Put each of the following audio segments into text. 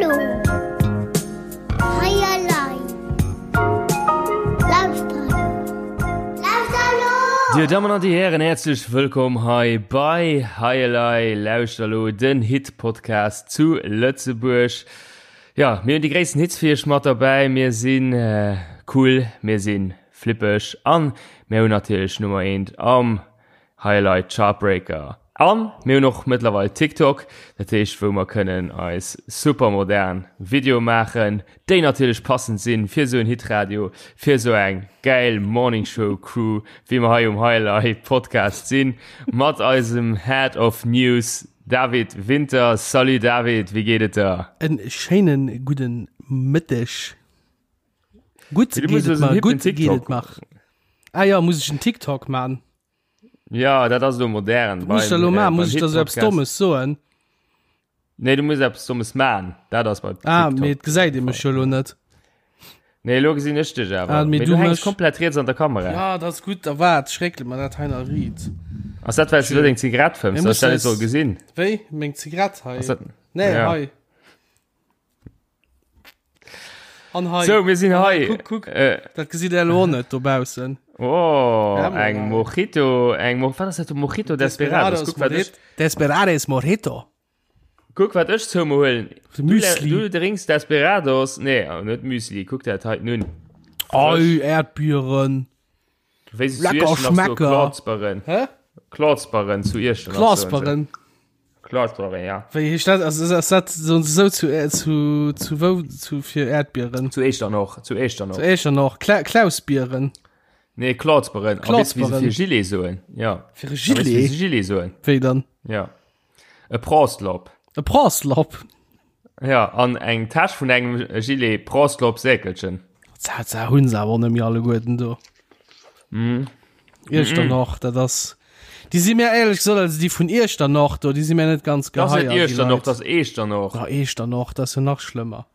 elo! Hei elei! Lauschter elo! Lauschter elo! Dir Dammen an Dir Hären, häerzlech wëllkomm hei bei Hei elei! Lauschter elo, den Hit-Podcast zu Lëtzebuerg. Jo, mir hunn déi gréissten Hits fir iech mat derbäi. Mir si cool, mir si flippeg an mir hunn natierlech Nummer eent am Highlight Chartbreaker. An mir hunn och mëttlerweil TikTok, dat heescht wou mer kënnen eis super modern Videoe maachen, déi natierlech passend sinn fir esou en Hitradio, fir esou eng gäil Morning Show Crew wéi mer hei um Highlight Podcast sinn, mat eisem Head of News David Winter. Salut David, wéi geet et der? En schéinen gudden Mëtteg. Gutt geet et mer, gutt geet et mer. Ah ja, muss ech en TikTok man? Ja, dat ass elo modern. Muss ech dat elo man? Muss ech da sou eppes Dommes soen? Nee, du muss eppes Dommes man. Dat ass bei TikTok. Ah, mee et gesäit ee mech jo elo net. Nee, elo gesinn ech dech awer. Ah, mee Mee du du hänks mech. komplett riets an der Kamera. Ja, dat ass gutt. Da waart, ech réckele mer dat hei nach riit. Ass dat, well s du elo deng Zigarett fëmms, Mir dass ech dat mussen net soll eis. gesinn? Wéi? Meng Zigarett hei? Ass dat. Nee, Ja. hei. An hei. So, mir sinn An hei. Kuck, kuck. Äh, Dat gesitt der elo och net dobaussen. oh, Ja, eng mal. Mojito, eng Mo wat ass dat? Mojito Desperados. Guck, wat ech, Desperados Mojito. guck, wat ech zou mir huelen. De Du, Müsli. du drinks Desperados. Nee, oh, net Müsli. Guck dat hei nun. Ei, Erdbieren. Wéi se zu Lecker Iechternach soen, Schmecker. Klotzberen. Hä? Klotzberen zu Iechternach. soen se. Klasberen. Klotzberen, ja. Wéi heescht dat? Also, ass dat so, so zu, äh, zu, zu wou, zu fir Erdbieren? Zu Echternach, zu Echternach. Zu Echternach. Kla Klausbieren. Nee, Klotzberen. A weess du, wéi se Klotzberen. fir Gilet soen? Ja. Fir e A weess du, wéi Gilet? se Gilet soen? Wéi dann? Ja. E Prostlop. E Prostlop? Ja, an eng Täsch vun engem Gilet Prostlop-Säkelchen. Dat dat hunn se awer och net méi alleguerten do. Mm. Iechternach, dat ass. Déi si mir éierlech gesot, also déi vun Iechternach do, déi si mir net ganz Das ass net geheier, déi Iechternach, Leit. das ass Eechternach. Ja, Eechternach, dat ass jo nach schlëmmer.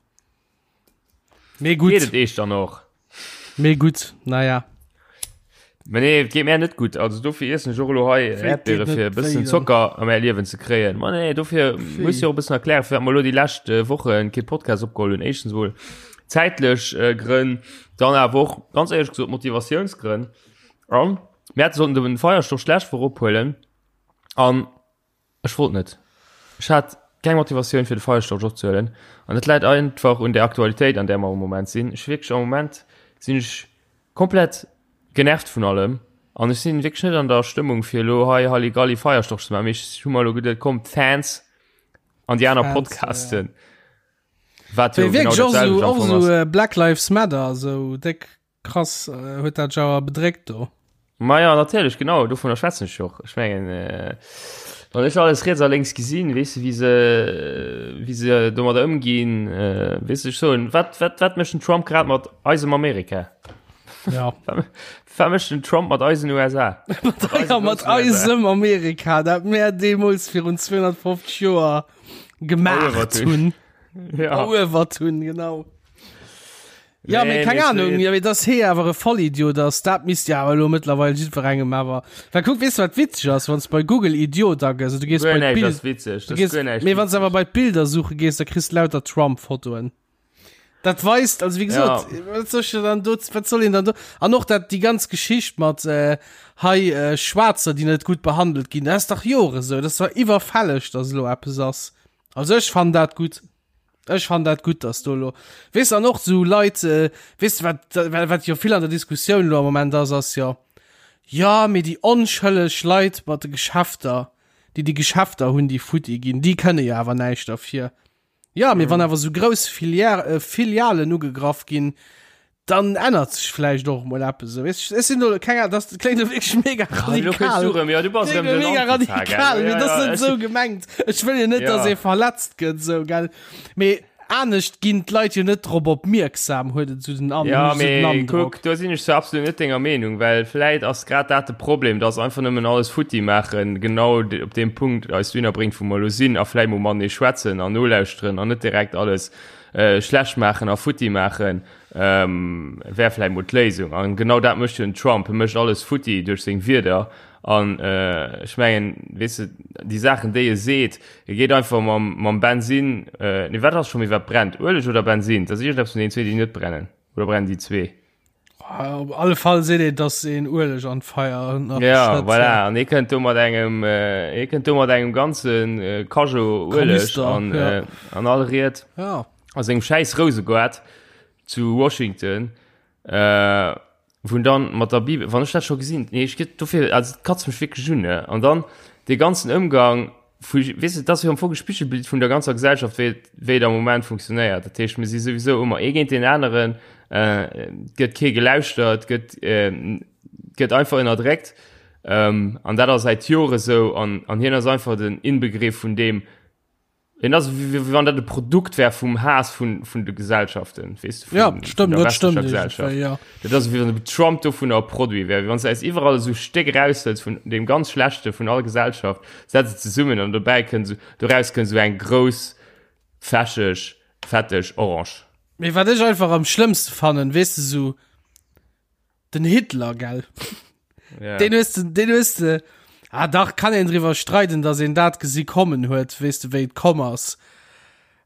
Mee Geet gutt, et Eechternach? mee gutt, naja. Mä nee, et geet mär net gutt. Also dofir iessen ech och elo hei Wéi, et Äerdbiere geet net fir e wéi bëssen dann? Zocker a mäi Liewen ze kréien. Ma nee, dofir muss Wéi? jo och e bëssen erklären, firwat mer elo déi lescht äh, Wochen kee Podcast opgeholl hunn. Éischtens mol zäitlech äh, Grënn, dann awer och ganz éierlech gesot Motivatiounsgrënn. An mir hätte sollten den Feierstorch d'lescht Woch ophuelen an Ech wollt net. Ech hat keng Motivatioun fir de Feierstorch opzehuelen an dat läit einfach un der Aktualitéit an där mer am Moment sinn. Ech wierklech am Moment sinn ech komplett genervt vun allem an ech sinn wierklech net an der Stëmmung fir elo hei Halligalli Feierstorch ze maachen, mee ech hu mer elo geduet komm d'Fans an déi aner Fans, ja. Podcasten, wat jo Mee genau wierklech och dat esou, selwecht am och Fong esou ass. äh, Black Lives Matter, esou déck Krass, huet dat dech awer bedréckt do? Maja, natierlech, genau, dovunner schwätzen ech och. Ech mengen, wann ech alles riets a lénks gesinn, weess de, wéi se, wéi se domadder ëmginn, weess de, ech soen, wat, wat, wat mécht den Trump grad mat eisem Amerika? Ja. Wat mécht den Trump mat eisen USA? Mat, ja, mat eisem Amerika, dat mär deemools virun 250 Joer gemaacht hunn. Ja. Eruewert hunn, genau. Ja, Nee, mee keng nee, Ahnung, nee. ja, mee dass hee awer e Vollidiot ass, dat misst ja awer elo mëttlerweil jiddwerengem awer. Well kuck, weess du wat witzeg ass, wann s bei Google Idiot agëss, du gees Guer bei näischt d'Bild, ass witzeg. du Das gees, ist guer näischt mee wann s awer witzeg. bei d'Bilder suche gees, da kriss du lauter Trump-Fotoen. Dat weist, also wéi gesot, Ja. wat soll ich dann do, wat soll een dann do, an och dat déi ganz Geschicht mat äh, hei äh, Schwaarzer, déi net gutt behandelt ginn, dat ass dach Jore sou, dat ass zwar iwwerfälleg, dass elo eppes ass. Also ech fannen dat gutt. Ech fannen dat gutt, dass do elo, weess de, an och esou Leit, weess de, wat, wat jo vill an der Diskussioun elo am Moment ass, ass jo, jo, mee déi onschëlleg Leit mat de Geschäfter, déi déi Geschäfter hunn, déi futti ginn, déi kënne jo awer näischt derfir. Jo, mee wann awer esou grouss Filière, Filialen ugegraff ginn, Dann ännert sech vläicht och mol eppes esou. Weess ech sinn do keng Ahnung, das kléngt elo wierklech mega radikal. Ja, du bass Kléngt erëm elo den mega Antifa, gell? radikal, Ja, mee dat ass ja, net ech esou gemengt. Ech wëll jo net, Ja. dass ee verletzt gëtt esou, gell. Mee anescht ginn d'Leit jo net drop opmierksam, huet et esou den An, Ja, hunn ech esou den mee Androck. kuck, do sinn ech zwar absolut net denger Meenung, well vläit ass grad dat de Problem, dass einfach nëmmen alles futti maachen genau de, op deem Punkt eis dohinner bréngt, wou mer elo sinn a vläit mol matenee schwätzen an nolauschteren an net direkt alles äh, schlecht maachen a futti maachen. Ähm, wär vläit mol d'Léisung. An genau dat mécht jo den Trump. E mécht alles futti duerch seng Wierder. An äh, ech mengen, weess de, déi Saachen, déi e seet, e geet einfach mam, mam Bensin, äh, nee, wat ass scho méi, wat brennt? Ueleg oder Bensin? Dat ass iergendeppes vun deenen zwee, déi net brennen. Oder brennen déi zwee? Ah, op alle Fall seet een, dass een Ueleg an d'Feier nach Ja, schëtt, voilà. ja. An e kënnt do mat engem, äh, e kënnt do mat engem ganzen äh, Cageot Ueleg Kanister, an, ja. äh, an all Ried Ja. a sengem schäiss Rousegoart zu Washington. Äh, wou dann mat der Bibel, wann ech dat scho gesinn, nee, ech gëtt dofir, also et katzt mech wierklech un, ne? An dann dee ganzen Ëmgang vu, weess de, dat ass jo am Fong e Spigelbild vun der ganzer Gesellschaft, wéi et, wéi et am Moment funktionéiert. Dat heescht, mir si souwisou ëmmer ee géint deen aneren, äh, et gëtt kee gelauschtert, et gëtt, äh, gëtt einfach ënnerdréckt. Ähm, an dat ass säit Jore sou an, an hien ass einfach den Inbegriff vun deem, En ass wéi wann dat e Produkt wär vum Haass vun, vun de Gesellschaften, weess de, vun, ja, stimmt, vun der dat stimmt, Gesellschaft. Ja. Dat ass wéi wann Trump dovun e Produit wär, wéi wann s de eis iwwerall esou Stéck eraushëls vun deem ganz Schlechte vun all Gesellschaft, setz et zesummen an dobäi kënnt esou, doraus kënnt esou eng grouss, fächeg, fetteg Orange. Mee wat ech einfach am schlëmmste fannen, weess de, esou Den Hitler, gell? Ja. Den hues de, den hues de, ah dach, kann een driwwer streiden, dass een dat gesi kommen huet, weess de, wéi et komm ass.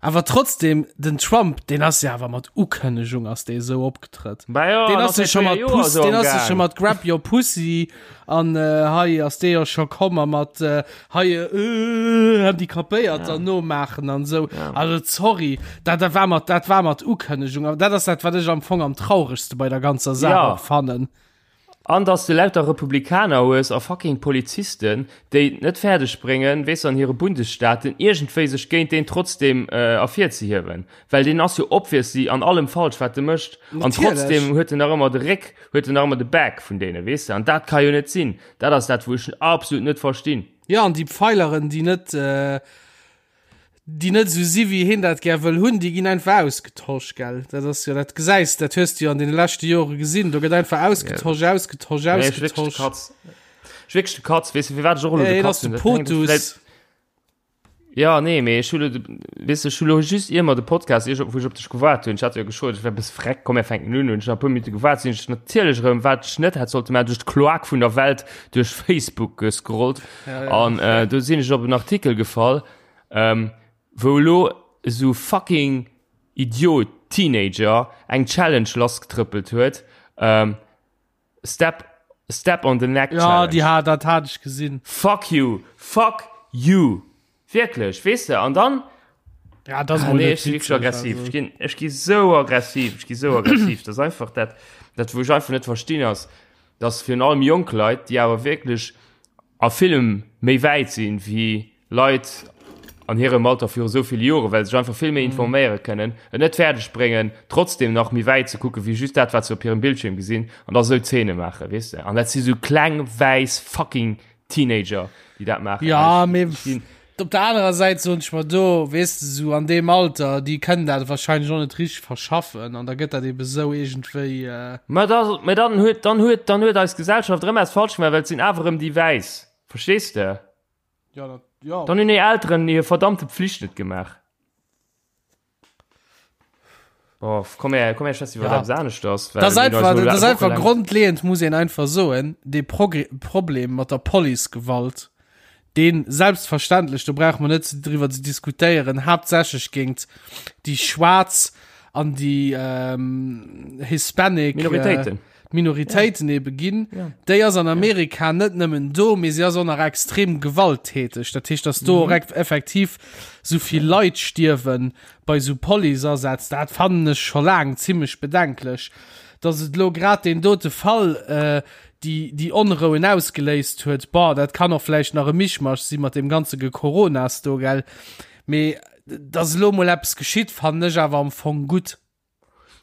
Awer trotzdem, den Trump, deen ass ja awer mat Ukënnegung ass dee sou opgetrëtt. Bah ja, Deen an ass jo säit scho 4 mat Joer Puss, sou deen am ass jo scho Gaang. mat Grab your Pussy an äh, hei ass dee jo scho komm a mat äh, hei äh, Handicapéierter ja. nomaachen an sou. Ja. Also sorry, dat, dat war mat, dat war mat Ukënnegung. Awer dat ass dat, wat ech am Fong am traurigste bei der ganzer Saach Ja. och fannen. An dass de lauter Republikaner hues a fucking Polizisten, déi et net fäerdeg bréngen, weess an hire Bundesstaaten iergendwéi sech géint deen trotzdem äh, ervirzehiewen. Well deen ass jo obviously an allem falsch, wat e mécht. An Natierlech. trotzdem huet en nach ëmmer de Réck, huet en nach ëmmer de Back vun deene, weess de. An dat ka jo net sinn. Dat ass dat, wou ech absolut net verstinn. Ja, an déi Pfeileren, déi net, äh, déi net esou si wéi heen dat gär wëll hunn, déi ginn einfach ausgetosch, gell? Dat ass jo, dat gesäis, dat hues du jo an deene leschte Jore gesinn, do gëtt einfach ausgetosch, yeah. ausgetosch, Nee, ech wierklech de ausgetosch. Katz. Ech wierklech de Katz, weess du, firwat ech och elo Ja, de heen Katz ass de hunn? Dat hänkt Potus. vläit Ja, nee, mee ech hu lo, weess de, ech hu lo just ier mer de Podcast, ier ech, wou ech op dech gewaart hunn, ech hat jo geschot, ech wär e bësse freck, komm mir fänken un, hunn ech nach e puer Minutte gewaart, sinn ech natierlech erëm, wat ech net hätt sollte maachen, duerch d'Kloak vun der Welt duerch Facebook gescrollt Ja, ja. an äh, do sinn ech op en Artikel gefall, ähm, wou elo esou fucking Idiot Teenager eng Challenge lassgetrëppelt huet, ähm, Step, step on the neck Ja, Challenge. déi hat, dat hat ech gesinn. Fuck you, fuck you. Wierklech, weess de, an dann. Ja, das Ah, mol nee, net ech si wierklech witzeg, aggressiv. also. Ech ginn, ech gi sou aggressiv, ech gi sou aggressiv. Dat ass einfach dat, dat wou ech einfach net verstinn ass, dass virun allem jonk Leit, déi awer wierklech a villem méi wäit sinn wéi Leit an hirem Alter viru sou ville Joren, well se sech einfach vill méi informéiere kënnen, et net fäerdeg bréngen, trotzdem nach méi wäit ze kucken, wéi just dat, wat se op hirem Bildschierm gesinn, an da sou Zeene maachen, weess de. An dat si sou kleng, wäiss fucking Teenager, déi dat maachen. Ja, Ech- mee ech ginn- op der anerer Säit soen ech mer do, weess de, sou an deem Alter, déi kënnen dat wahrscheinlech och net richteg verschaffen an da gëtt dat ebe sou iergendwéi. Äh, Mä da, mä dann huet, dann huet, dann huet eis Gesellschaft erëm eppes falsch gemaach, well et sinn awer erëm déi Wäiss. Verstees de? Ja, dat, ja. Dann hunn déi Elteren hir verdammte Pflicht net gemaach. Oh, komm her, komm her, schwätz iwwer Ja. eppes aneschters. well Das mir hunn einfach, eis elo das einfach wochenlang- grundlegend muss een einfach soen, de Progr Problem mat der Policegewalt, deen selbstverständlech, do brauche mer net driwwer ze diskutéieren, haaptsächlech géint déi Schwaarz an déi ähm, Hispanic Minoritéiten. Äh, d'Minoritéiten ja. ebe ginn, ja. déi ass an Amerika ja. net nëmmen do, mee si ass och nach extrem gewalttäteg. Dat heescht, dass do mhm. effektiv sou vill Leit stierwen bei sou Policeasätz, dat fannen ech scho laang zimmlech bedenklech. Dass et lo grad den dote Fall äh, déi, déi Onrouen ausgeléist huet, boah, dat kann och vläicht nach e Mischmasch si mat dem ganze Gekoronas do, gell. Mee dass elo mol eppes geschitt, fannen ech awer am Fong gutt.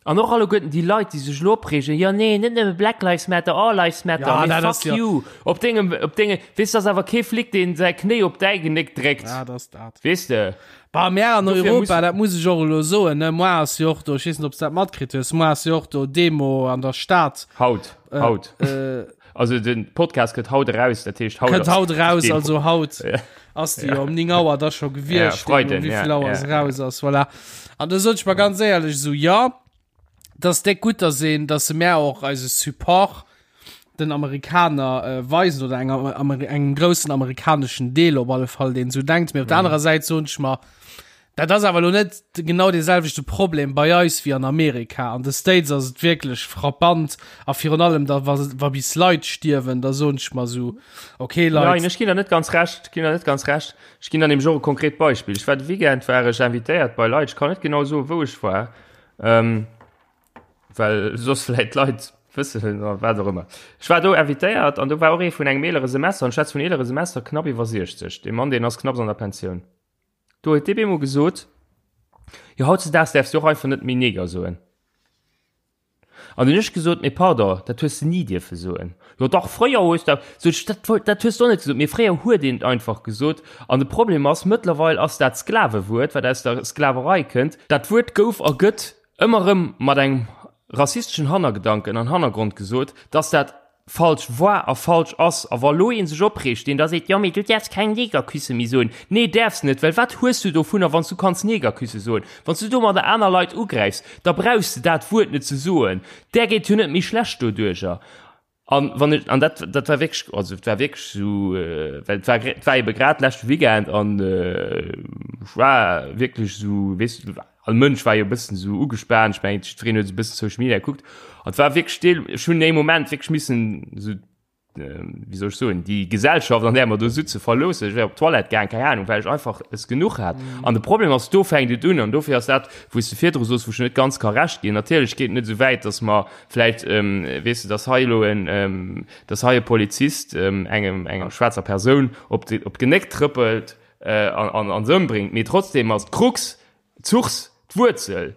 An och alleguerten déi Leit, déi sech elo opreegen, jo nee, net nëmme Black Lives Matter, all Lives Matter, Ja, mee dat fuck ass jo- you. Op dengem, op denge, weess, ass awer kee Flic, deen säi Knéi op däi Genéck dréckt. Ja, dat ass dat. Weess de? Bah, mär an Dofir Europa, muss- dat muss ech och elo soen, ne, moar ass jo och do, ech weess net, ob s dat matkritt hues, moar ass jo och do Demo an der Stad. Haut, haut. Äh, Also den Podcast gëtt haut eraus, dat heescht haut kënnt ass haut eraus, Demo. also haut Ja. ass déi jo um 9 Auer da scho Ja, gewiescht, Freiden, wéi ja, vill Auer ja, se raus ass, voilà. An da sot ech mer ganz éierlech esou, jo, dat ass déck gutt, dass een, dass se mär och eise Support. den Amerikaner äh, weisen oder enger, Amer engem groussen amerikaneschen Deel op alle Fall, deen sou denkt. Mee op der mhm. anerer Säit soen ech mer, dat ass awer lo net genau dee selwechte Problem bei eis wéi an Amerika. An de States ass et wierklech frappant a virun allem da wa, wa bis Leit stierwen, da soen ech mer sou, okay Leit. Nein, ech ginn der net ganz recht, ginn der net ganz recht. Ech ginn der nämlech och e konkret Beispill. Ech war de Weekend war ech invitéiert bei Leit, ech kann net genau soen, wou ech war. Ähm, well soss vläit d'Leit wëssen oder wat och ëmmer. Ech war do invitéiert an do war och ee vun engem eelere Semester, an ech schwätze vun eelere Semester, knapp iwwer 60, dee Mann, deen ass knapps an der Pensioun. Do huet dee bemol gesot, jo hautzedaags däerfs du och einfach net méi Neger soen. An hunn ech gesot, mee pardon, dat hues de ni dierfe soen. Jo dach, fréier hues de, sot ech, dat, dat hues de och net gesot, mee fréier huet een et einfach gesot. An de Problem ass, mëttlerweil ass dat Sklavewuert, wat aus der Sklaverei kënnt, dat Wuert gouf a gëtt ëmmer erëm mat engem rassisteschen Hannergedanken an Hannergrond gesot, dass dat falsch war a falsch ass. A wa lo ee sech opreegt, deen da seet, jo mee du däerfs keng Negerküsse méi soen. Nee, däerfs net, well wat hues du dovunner, wann s du kanns Negerküsse soen? Wann s du domadder aner Leit ugräifs, da brauchs de dat Wuert net ze soen. Där geet jo net méi schlecht doduercher. An wann ech, an dat, dat war wierklech, also et war wierklech esou, well et war, et war ebe grad leschte Weekend an ech war wierklech esou, weess du, all Mënsch war jo e bëssen esou ugespaant, ech mengen, jiddwereen huet esou e bëssen Social Media gekuckt an et war wierklech deel, ech hunn ee Moment wierklech missen esou, wéi soll ech soen, déi Gesellschaft, an där mer do sutze verloossen, ech wär op d'Toilette gaang, keng Ahnung, well ech einfach es genuch hat. An de Problem ass, do fänkt et un an dofir ass dat, wou s de virdru soos, wou ech net ganz ka Recht ginn, natierlech geet et net esou wäit, datt mer Vläit, weess de, dass hei elo en, dass hei e Polizist engem, enger schwaarzer Persoun op de, op d'Genéck trëppelt an, an se ëmbréngt. Mee trotzdem ass d'Krux, d'Source, d'Wuerzel,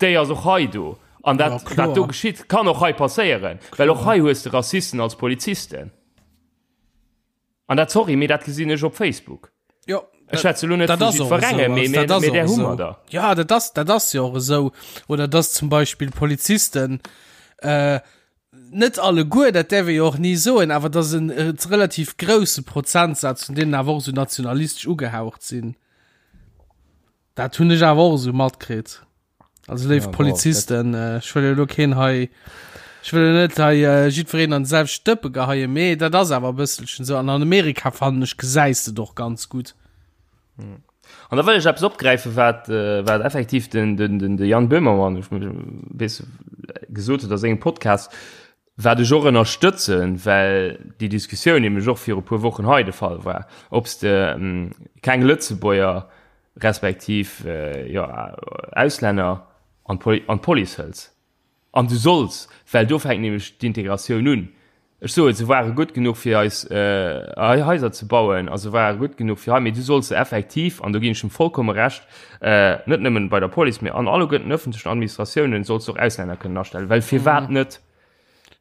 déi ass och hei do. An dat, wat do geschitt, kann och hei passéieren, well och hei hues de Rassisten als Polizisten. An dat, sorry, mee dat gesinn ech op Facebook. Jo. Ech schwätze lo net vu jiddwerengem, mee mee där hu mer der. Ja, dat ass, dat ass jo och esou. Oder dass zum Beispill Polizisten, äh, net alleguer, dat däerf ee jo och ni soen, awer dass en relativ grousse Prozentsaz vun deenen awer och esou nationalistesch ugehaucht sinn. Dat hunn ech awer och esou matkritt. Also léif ja, Polizisten, äh, ech wëll jo keen hei ech wëll net hei äh, jiddwereen an selwecht Stëppe geheie, mee dat ass awer e bësselchen sou. An an Amerika fannen ech gesäis de doch ganz gutt. Hm. An da wëll ech eppes opgräifen, wat, äh, wat effektiv den, den, den, de Jan Böhmermann weess, gesot huet a sengem Podcast, wat ech och ënnerstëtzen, well déi Diskussioun nämlech och viru puer Wochen hei de Fall war, ob s de ähm, keng Lëtzebuerger respektiv jo, Auslänner an d'Police hëls. An du solls, well do fänkt nämlech d'Integratioun un. Ech soen, se ware gutt genuch fir eis Haiser ze bauen a se ware gutt genuch fir hei, mee du solls se effektiv, an do ginn ech em vollkomme Recht, net nëmmen bei der Police, mee an alleguerten ëffentlechen Administratiounen solls du och Auslänner kënnen astellen, well firwat net?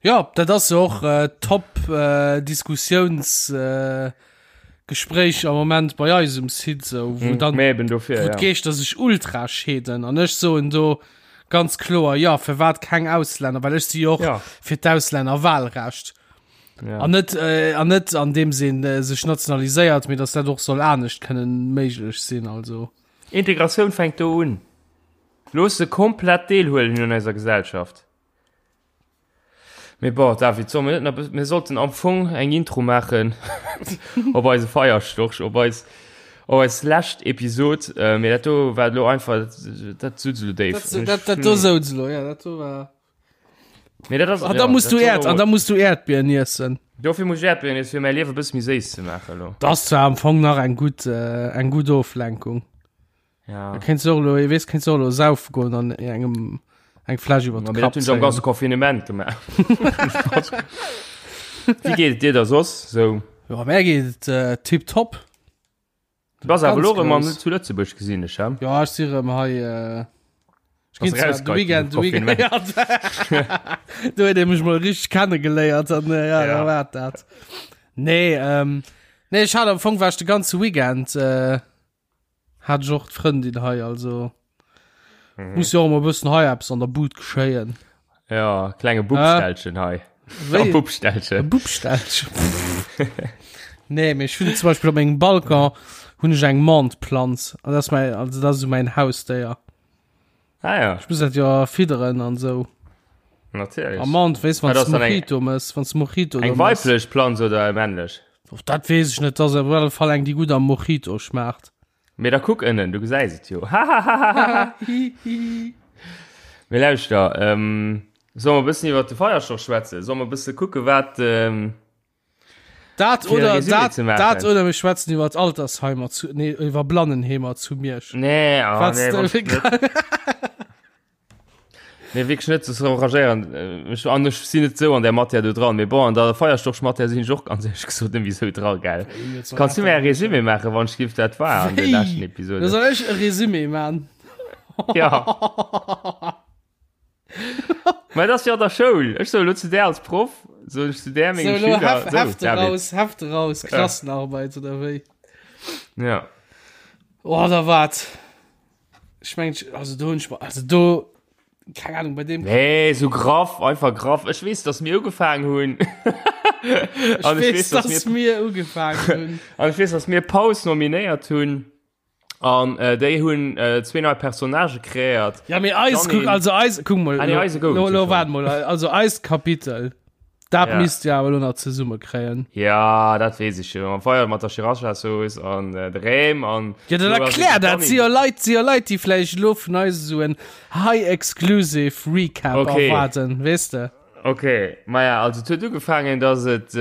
Jo, dat ass jo och äh, top äh, Diskussiouns äh, Gespréich am Moment bei eis um Site sou, wou mm, dann eben dofir, wou ja. d'Geeschter sech ultra scheeden an ech soen do ganz kloer ja, firwat keng Auslänner, well ech si jo och ja. fir d'Auslännerwahlrecht. Ja. An net äh, an net an dem Sinn äh, sech nationaliséiert, mee dass dat och soll anescht kënnen méiglech sinn also. Integratioun fänkt do un. Looss se komplett deelhuelen un eiser Gesellschaft. Mee bon, David, solle mir net nach, mir sollten am Fong eng Intro maachen op eise Feierstorch, op eis, op eis lescht Episod. Äh, mee dat do war elo einfach, dat sutz elo déif. Dat, dat, dat do souz elo, ja, dat do war. Mee dat ass, An da ja, muss dat du soll Äerd, an da muss du Äerdbieren iessen. Dofir muss ech Äerdbieren iessen, fir mäi Liewe e bësse méi séiss ze maachen elo. Dat ass zwar am Fong nach eng gutt, äh, eng gutt Oflenkung. Ja. Da kéints du och elo, weess, kéints du och elo saufe goen an engem eng Fläsch iwwer de Kapp Kapp zéien. Am ganze Confinement gemaach. Wéi geet et dir da soss sou? Jo, mär geet et äh, tipptopp. Du bass awer Ganz elo erëm an grouss. zu Lëtzebuerg gesinn ech, he? Ja, ech si erëm hei. Äh, ech Bass ginn zwar de rausgeheit Weekend, de vum Weekend, ja, do huet ee mech mol richteg kennegeléiert an äh, ja, Ja. da war dat. Nee, ähm, nee, ech hat am Fong war ech de ganze Weekend äh, Hat ech och d'Frëndin hei, also mhm. muss jo och mol bëssen hei eppes an der Bud geschéien. Ja, klenge Bubstellchen hei. Wéi? Bubstellchen. Bubstellchen. nee, mee ech hunn zum Beispill op mengem Balcon hunn ech eng Mentplanz. An dat ass mäi, also dat ass esou mäin Hausdéier. Ah ja. Ech muss dat jo fidderen an esou. Natierlech. A Menthe, weess, wann Ah, das du dann eng- Mojito mëss, wann du Mojito Eng do mëss. weiblech Planz oder eng männlech? Och dat weess ech net, dat ass op alle Fall eng, déi gutt am Mojito schmaacht. Mee da kuck ënnen, du gesäis et jo. Hahahaha. Mee lauschter, ähm, solle mer e bëssen iwwer de Feierstorch schwätzen? Solle mer e bësse kucke wat, ähm, Dat Fir e oder Résumé dat, ze maachen. dat oder mir schwätzen iwwer Altersheimer zu, nee, iwwer Blannenheemer zu Miersch. Nee, oh, Was nee, du- wann ich net. Nee, wierklech net, das enragéieren. Äh, Ech, an ech sinn net sou an der Matière do dran. Mee bon, an der Feierstorch-Matière sinn ech och ganz éierlech gesot net méi sou dran, gell. Kanns du mir e Résumé maachen, wann ech giff dat war an der Wéi? leschten Da Episode? soll ech e Résumé man. Ja. Mä dat ass jo an der Schoul. Ech soe lo zu där als Proff, soen ech zu där So, menge lo Schüler, Hef, so, Hefte David. raus, Hefte raus, Klassenarbeit oder wéi? Ja. Oh, da wat. Ech meng, also do hunn ech, also do, keng Ahnung, bei dem. Nee, so graff, einfach graff. Ech weess, dass mir ugefaangen hunn. Ech An weess, dass mir ugefaangen hunn. An ech weess, dass mir Paus nominéiert hunn. An äh, déi hunn äh, zwee nei Personnagë kreéiert. Ja, mee eis, Janine. kuck, also eis, kuck mol, Ah, nee, eise gouf lo, et lo, jo waart mol, also eist Kapitel, dat Ja. misst Dir awer lo nach zesumme kréien. Ja, dat weess ech jo. Am Feier mat der Sriracha-Sauce an äh, de Räm an. Ja, dann Lo ass erklär et dat, si jo Leit, si jo Leit, déi vläicht lo vun eis esou en high exclusive Recap Okay. erwaarden, weess de? Ok, maja, also et huet ugefaangen, dass et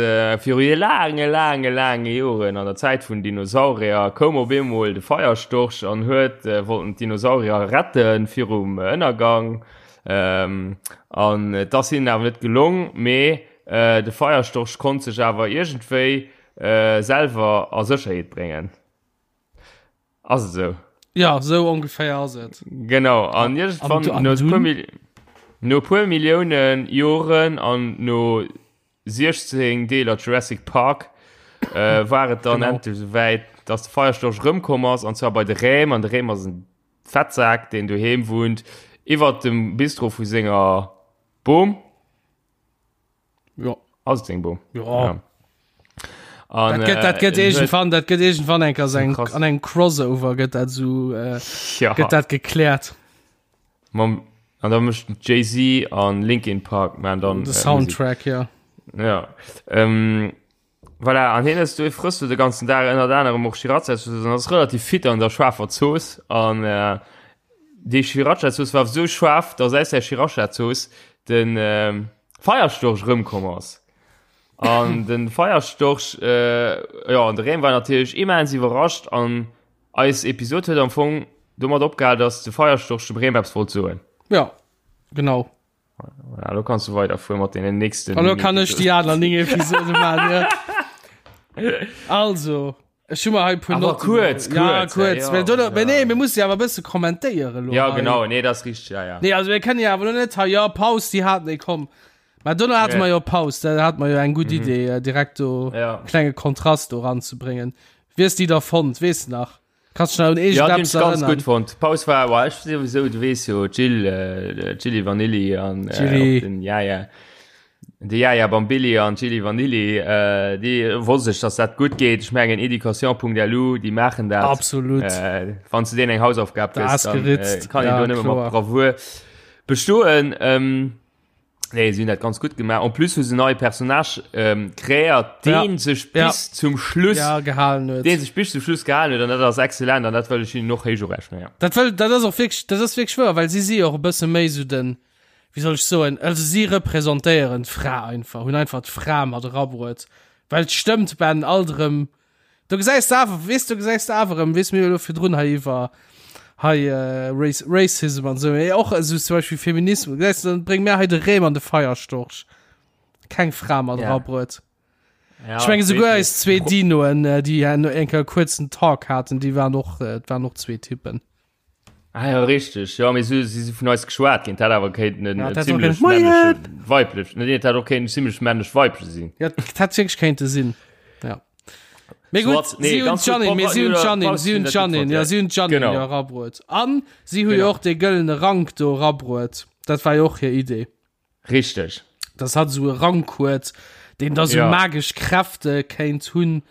viru laange, laange, laange Joren, an der Zäit vun Dinosaurier, koum op eemol de Feierstorch an huet wollten d'Dinosaurier rette virum Ënnergang. An et ass hinnen awer net gelong, mee de Feierstorch konnt sech awer iergendwéi selwer a Sécherheet bréngen. Ass et esou? Ja, esou ongeféier ass et. Genau, an iergendwann an no e dunn? puer Mil no e puer Millioune Joren an no 16 Deeler Jurassic Park äh, war et dann Genau. endlech esouwäit, dass de Feierstorch erëmkomm ass, an zwar bei de Räm, an de Räm ass en Fettsak, deen doheem wunnt, iwwert dem Bistro vu senger Bom. Ja. Ass et seng Bom? Ja. Ja. An, Dat gëtt, dat gëtt äh, irgendwann, dat gëtt irgendwann eng Kéier eng, Krass. an engem Crossover gëtt dat so, äh, ja. gëtt dat gekläert. Mam, an da mécht Jay-Z an Linkin Park man dann De äh, Soundtrack, ja. Musik. Ja. Ähm, voilà, an hien ass du frëss du de ganzen Dag ënnert anerem och Sriracha-Zooss an ass relativ fit an der schaarfer Zooss an äh, déi Sriracha-Zooss war sou schaarf, dass aus der Sriracha-Zooss den äh, Feierstorch rëmkomm ass. An den Feierstorch, äh, ja, an de Rem war natierlech immens iwwerrascht an eis Episod huet am Fong domat opgehal, dass de Feierstorch dem Rem eppes wollt soen. Ja, genau. Ja, lo kanns du weiderfuere mat deenen nächsten. An lo kann ech déi aner 9 Episode maachen, ja. Also, ech hu mer hei e puer Awer Notten. kuerz, Ja, kuerz, kuerz. ja, Well do, ja. mä nee, mir musse jo awer e bësse kommentéieren lo Ja, hei. genau, nee, dat ass richteg, ja, ja. Nee, also mir kënnen jo awer lo net hei, ja, Paus, déi haten, nee, komm. Mä dono hate Ja. mer jo Paus, da hate mer jo eng gutt Idee, äh, direkt do Ja. klenge Kontrast do ranzebréngen. Wéi hues de déi da fonnt, weess de nach? Kannst du nach un Ja, déi hunn iergendeppes ech ganz erënnern? gutt fonnt. D'Paus war, wa, ech souwisou, du weess jo, Jill, äh, Jilli Vanilli an äh, Jilli. och den Jaja. De Jaja Bambilli an Jilli Vanilli, äh, déi wosst ech, dass dat gutt geet. Ech mengen Education.lu, déi maachen dat. Absolut. Äh, wann du denen eng Hausaufgab Da gëss, ass dann äh, geritzt. kann een Ja, do nëmme kloer. mat Bravour bestoen. Ähm, nee, si hunn dat ganz gutt gemaach. En plus hu se neie Personnage ähm, kreéiert, Ja. deen sech Ja. bis zum Schluss Ja, gehalen huet. deen sech bis zum Schluss gehalen huet an dat ass excellent an dat wëll ech hinnen och héich urechnen. Ja. Dat wëll, dat ass och wierklech, dat ass wierklech wouer, well si si och e bësse méi sou den, wéi soll ech soen, also si representéieren d'Fra einfach, hunn einfach d'Fra mat erabruet, well et stëmmt ben alt erëm, do gesäis de awer, weess, do gesäis de awer erëm, weess, mir hu jo elo virdrun hei iwwer hei Race, Racism an esou, mee och esou zum Beispill Feminismus, gesäis de, dann brénge mir hei de Rem an de Feierstorch, keng Fra mat Ja. erabruet. Ja, Ech menge souguer eis zwee Pro- Dinoen, déi eng Kéier e kuerzen Talk haten, déi waren och, et waren och zwee Typen. Ah ja, richtig. Ja, mee si si vun eis geschwat ginn. Dat awer kéinten en Ja, dat hätt och zimmlech kéinten, Moien! männleche weiblech. Nee, dat hätt och kéinten zimmlech männlech weibleche sinn. Ja, dat hätt wierklech kéinte sinn. Ja. Mee gutt, Soit, nee, si hunn ganz gutt. d'Janine, mee si hunn Pop- d'Janine, Pop- si hunn dat gutt d'Janine, fand, ja, ja. si hunn d'Janine Genau. jo erabruet. An si hu jo Genau. och dee gëllene Rank do erabruet. Dat war jo och hir Idee. Richteg. Dass hatt esou e Rank huet, deen da sou Ja. magesch Kräfte kéint hunn.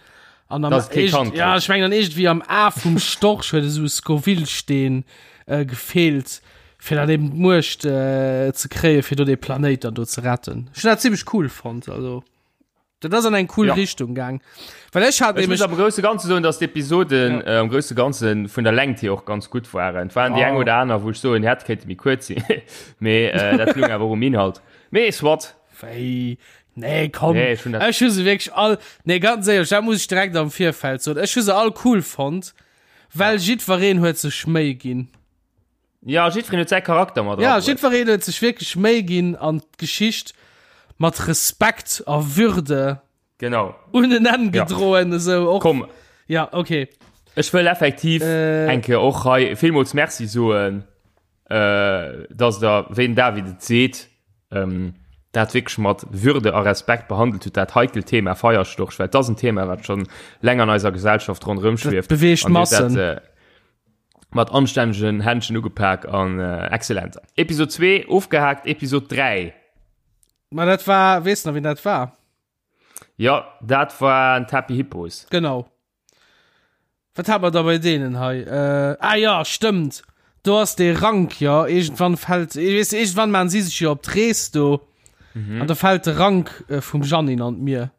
An am Dass et kee iergend- Kand ja, kritt. ech mengen an iergendwéi am A vum Storch huet esou e Scoville-Steen äh, gefeelt. Fir dann eben d'Muecht äh, ze kréie fir do de Planéit dann do ze retten. Ech hunn dat zimmlech cool fonnt, also. Dat ass an eng cool Ja. Richtung gaang. Well ech hat Ech muss nämlech am grousse Ganze soen, dass d'Episoden Ja. äh, am grousse Ganze vun der Längt hier och ganz gutt waren. Et waren déi eng Ah. oder aner, wou ech soen, hätt kéinte méi kuerz sinn. Mee äh, dat lung awer och um Inhalt. Mee soit. Wéi? Nee, komm. Nee, ech hunn dat- Ech hu se wierklech all, nee, ganz éierlech, dat muss ech direkt am Virfeld soen. Ech hu se all cool fonnt, well jiddwereen huet sech Méi ginn. Ja, jiddwereen huet säi Charakter mat Ja, erabruecht. jiddwereen huet sech wierklech Méi ginn an d'Geschicht mat Respekt a Würde Genau. un en Enn Ja. gedroen, esou och. Komm, Ja, okay. ech wëll effektiv Äh. eng Kéier och hei villmools Merci soen, äh, dass der, wéi den David et seet, ähm, dat wierklech mat Würde a Respekt behandelt hutt, dat heikelt Thema Feierstorch, well dat ass en Thema, wat schonn länger an eiser Gesellschaft ronderëm schwieft. beweegt An Dir hutt dat, Massen. äh, mat anstännegen Händchen ugepak an äh, exzellent. Episode 2 ofgehakt, Episode 3. Ma dat war, weess nach, wien dat war? Ja, dat war en Happy Hippos. Genau. Wat hat mer da bei deenen hei? Äh, ah ja, stëmmt. Do ass dee Rank, ja. Iergendwann fält, ich weess, iergendwann maan si sech jo op d'Rees do. Mhm. An da fält de Rank äh, vum Janine an d'Mier.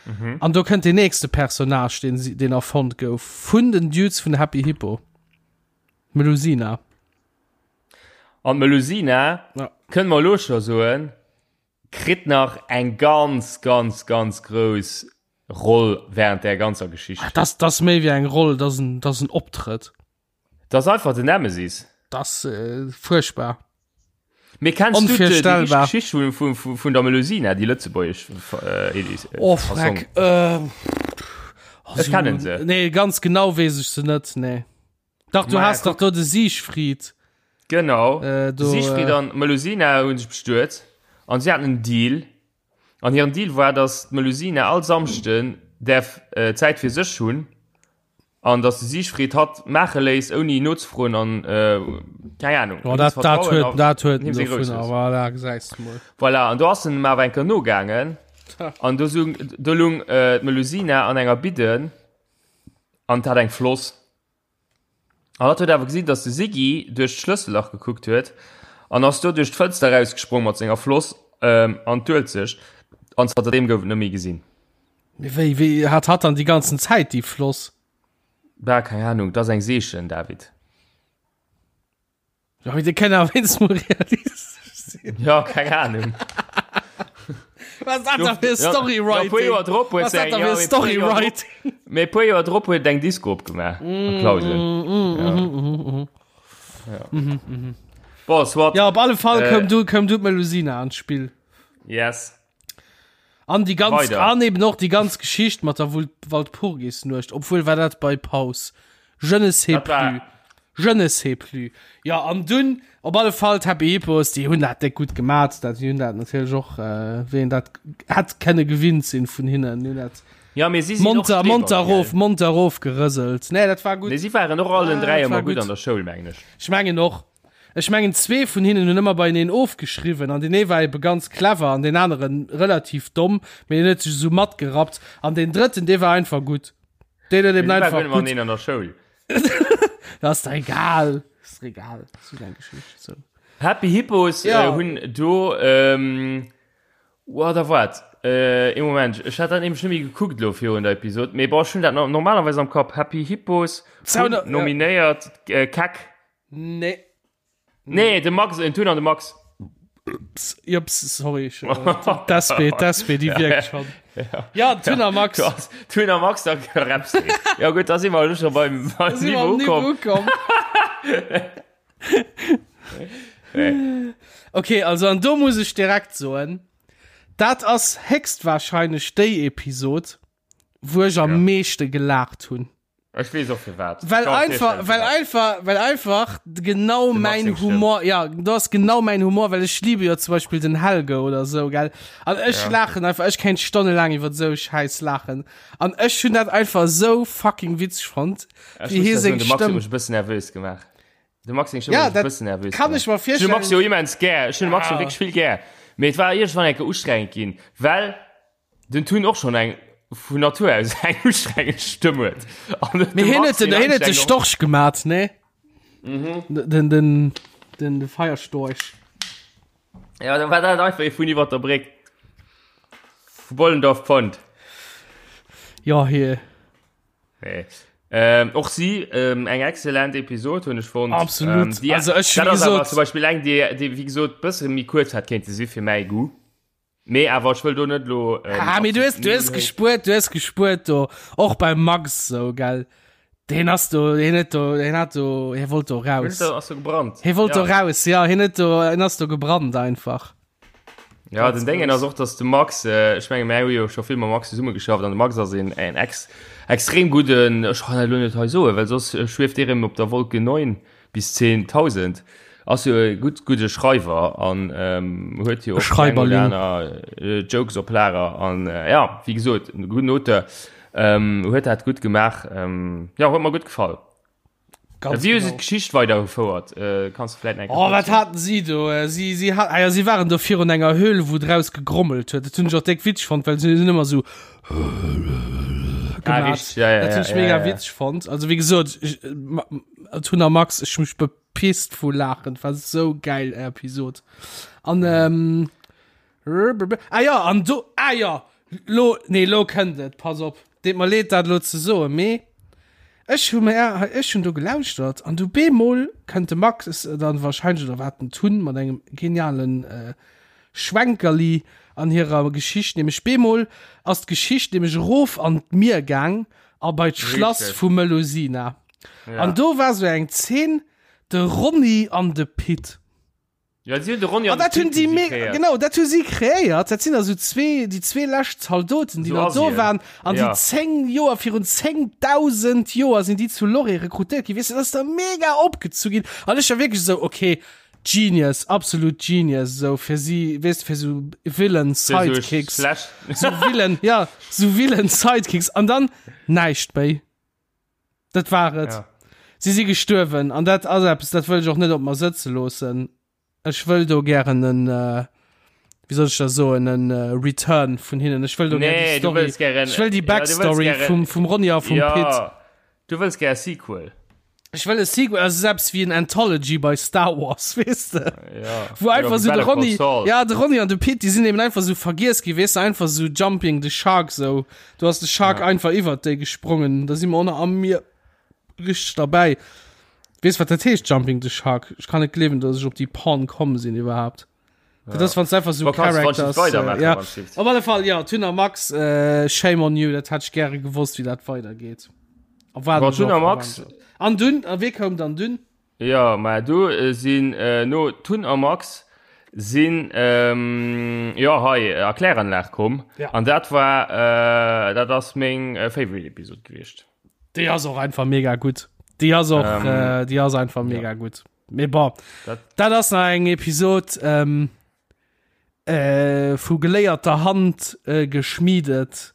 Mhm. An do kënnt den nächste Personnage, den, si- den erfonnt gouf, vun den Dudes vun Happy Hippo. Melusina. An Melusina, Ja. kënne mer elo scho soen, kritt nach eng ganz, ganz, ganz grouss Roll während der ganzer Geschicht. Das, das méi wéi eng Roll, das en, das en Optrëtt. Das ass einfach den Nemesis. Das äh, furchtbar. Mee kennst du déi Onvirstellbar. Geschicht vun, vun, vun, vun der Melusina, déi lëtzebuergesch äh, Elis, äh, Oh, Fassong? Freck. Äh, Ech kennen se. Nee, ganz genau wees ech se net, nee. Dach, du Maja, hast dach do de Siegfried. Genau. Äh, do, Siegfried äh, an Melusina hunn sech bestuet an si haten en Deal. An hiren Deal war, dass d'Melusina all Samschden däerf äh, Zäit fir sech hunn an dass de Siegfried hatt maache léisst, ouni nozefroen an äh, keng Ahnung. Oh, dat, dat huet, dat huet him seng Grouss dovunner, voilà, gesäis du mol. Voilà, an do ass en em awer eng Kéier nogaangen an do sung, do lung äh, d'Melusina an enger Bidden an hat eng Floss. An hatt huet awer gesinn, dass de Siggy duerch d'Schlëssellach gekuckt huet an ass do duerch d'Fënster erausgesprong mat senger Floss ähm, an d'Uelzecht an zanter deem gouf et net méi gesinn. Mee wéi, wéi hat hatt dann déi ganzen Zäit déi Floss? Bah, keng Ahnung, dat ass eng Seechen, David. Ja, mee déi kënnen awer wéinstens mol realistesch sinn. Ja, keng Ahnung. Was dat da fir Storywriting? Ja, puer Joer drop huet Was dat se da eng, fir ja, mee puer Joer drop, Storywriting? mee puer Joer drop huet eng Disco opgemaach a Clausen. Mm, Ja. Bon, soit. Ja, op alle Fall Äh, koum du, koum du d'Melusina an d'Spill. Yes. An die ganz, Weider. an eben och die ganz Geschicht mat der Wul- Walpurgisnuecht, obwohl war dat bei Paus. Je ne sais Dat war- plus. Je ne sais plus. Ja, an dunn, op alle Fall, d'Happy Hippos, déi hunn dat déck gutt gemat, dat, déi hunn dat natierlech och, äh, wéi een dat hätt kenne gewinnt sinn vun hinnen, déi hunn dat Ja, mee si sinn och monter, Streber, monter gell? rof, monter rof gerëselt. Nee, dat war gutt. Nee, si waren och allen Ah, 3 dat ëmmer war gutt gutt. an der Schoul, mengen ech. Ech mengen och. Ech mengen zwee vun hinnen hunn ëmmer beieneen ofgeschriwwen an deen ee war ebe ganz clever an deen aneren relativ domm, mee deen huet sech esou matgerappt an deen drëtten, dee war einfach gutt. Deen huet eben Mee si einfach waren gutt gutt. mateneen an der Schoul. Dat ass der egal. Ass der egal. Ass just eng Geschicht. So. Happy Hippos Ja. äh, hunn do ähm, oh, da wat äh, ee Moment ech hat dat nämlech net méi gekuckt lo virun der Episode mee bon ech hunn dat no- normalerweis am Kapp Happy Hippos hunn Zauner- ja. nominéiert äh, Keck Nee. nee de Max en Tun an de Max Jups, sorry. Ich, äh, d'SP, d'SP, déi wierkt schon. Ja, Tun a Max. Du hast Tun a Max da rappst du. Ja gut da si mer schon beim, beim Da si mer am Niveau Niveau ukomm ukomm. Okay, also an do muss ech direkt soen, dat ass héchstwahrscheinlech déi Episod, wou ech am Ja. meeschte gelaacht hunn. Ech weess och firwat. Well Kann mir einfach, virstellen, well firwat. einfach, well einfach genau De Max mein seng Stëmm. Humor, ja, do ass genau mein Humor, well ech liebe jo zum Beispill den Helge oder sou, gell. An ech Ja. laachen einfach, ech kéint stonnelaang iwwer sou Schäiss laachen. An ech hunn dat einfach sou fucking witzeg fonnt, Ech wéi muss hie da soen, seng de Max huet Stëmm. mech e bëssen nervös gemaach. De Max seng Stëmm Ja, huet mech e dat bëssen nervös kann gemaach. ech mer Ech hunn de Max virstellen. jo immens gär. Ech hunn de Max jo Ja. wierklech vill gär. Mee et war iergendwann eng Kéier ustrengend ginn, well den Tun och schonn eng vun Natur aus eng ustrengend Stëmm huet. An Mee de hien Max huet den, seng hien huet de Anstrengung- Storch gemat, ne? Mhm. Den, den. Den de Feierstorch. Ja, da war dat einfach ee vun iwwer der Bréck. Vu Bollendorf Pont. Ja, hier. Nee. Ähm, och si ähm, eng exzellent Episod hunn ech fonnt. Absolut. Ähm, die, Also ech, dat wie ass awer gesot- zum Beispiel eng, déi, déi wéi gesot bësse méi kuerz hat kéinte si fir mäi Goût. Mee awer ech wëll do net lo. Ähm, Ah, mee du hues, du hues gespuert, du hues gespuert do. Och beim Max so, gell. Deen ass do, hien huet do, hien hat do, hie wollt do raus. Ass do gebrannt. Hie wollt ja. do raus, ja, hien huet do, hien ass do gebrannt einfach. Ja, den Déngen ass och, dass de Max, äh, ech menge mär hu jo scho vill mam Max zesumme geschafft an de Max ass een en ex extrem gudden, ech kann dat elo net hei soen, well soss äh, schwieft dee rëm op der Wolke 9 bis 10.000, ass jo e gutt gudde Schreiwer an ähm, huet jo och déi eng oder Schreiberling. aner äh, Jokes op Lager an äh, ja, wéi gesot, e gudden Auteur, ähm, huet dat gutt gemaach, ähm, ja, huet mer gutt gefall. Ganz Wéi hu se genau. d'Geschicht weidergefouert? Äh, kanns du vläit nach eng Oh, Kéier wat kuerz haten si do? Äh, Si, si, hat, ah ja, si waren do virun enger Höhl, wou draus gegrommelt huet. Dat hunn ech och déck witzeg fonnt, well si hunn ëmmer sou Ah, gemaat. richtig, ja, ja, Dat hunn ja, ech mega ja, ja. witzeg fonnt. Also, wéi gesot, ech, äh, ma- Tun a Max, ech hu mech bepisst vu Laachen. War sou geil Episod. An, ähm, Ah ja, an do, ah ja, lo, nee, lo kënnt et, pass op. Deet mer leed, dat lo ze soen, mee ech hu mer, ech hunn do gelauschtert an du bemol kënnt de Max dann wahrscheinlech, oder wat den Tun mat engem genialen äh, Schwenkerli an hirer Geschicht, nämlech bemol ass d'Geschicht nämlech erof an d'Mier gaang a bei d'Schlass Richtig. vu Melusina. Ja. An do war sou eng Zeen, de Ronny an de Pit. Ja, si hunn de Ronny An an de dat hunn Pit déi hu si me kreéiert. genau, dat hu si kreéiert. Dat sinn also zwee, déi zwee lescht Zaldoten, déi So nach do Asien. waren. An déi Ja. 10 Joer, virun 10.000 Joer sinn déi zu Loré rekrutéiert ginn. Weess de, dat ass da mega opgezu ginn. An ech war wierklech esou, okay, Genius, absolut Genius, esou fir si, weess de, fir esou Villain Fir sou Sidekicks. schlecht. Sou Villain, ja, sou Villain Sidekicks. An dann näischt méi. Dat war et. Ja. Si si gestuerwen an dat ass eppes, dat wëll ech och net op mer sëtze loossen. Ech wëll do gären en, äh, wéi soll ech dat soen, en äh, Return vun hinnen. Ech wëll do gär Nee, déi du Story, wëlls gären- ech wëll déi ja, du wëlls Backstory gären- vum, vum Ronny a vum ja, Pit. Du wëlls gär e Sequel. Ech wëll e Sequel, also selbst wéi en Anthology bei Star Wars, weess de? Ja. Wou einfach Oder so de Better Call Ronny, Saul. ja, de Ronny an de Pit, déi sinn eben einfach so vergiess gi, weess de, einfach so Jumping the Shark, so. Du hast de Shark Ja. einfach iwwert déi gesprongen, da si mer och nach am Mier richteg derbäi. Weess wat dat heescht, Jumping the Shark? Ech kann net gleewen, dass ech op déi Porn komm sinn iwwerhaapt. Dat ass, wann einfach so Bon, kannst du wann Characters, weitermachen, äh, ja. wann du Op alle Fall, ja, Tun a Max, äh, shame on you, dat hätt ech gäre gewosst, wéi dat weidergeet. A war Bon, Tun a Max- An dunn, a wee koum dann dunn? Ja, mä do äh, sinn äh, no Tun a Max sinn ähm, ja hei äh, a Kläranlag komm. Ja. An dat war äh, dat ass meng äh, Favorite Episode gewiescht. Déi ass och einfach mega gutt. Déi ass och, Ähm, äh, déi ass einfach mega gutt. Mee bon, Dat- dat ass nach eng Episod ähm, äh, vu geléierter Hand äh, geschmiedet.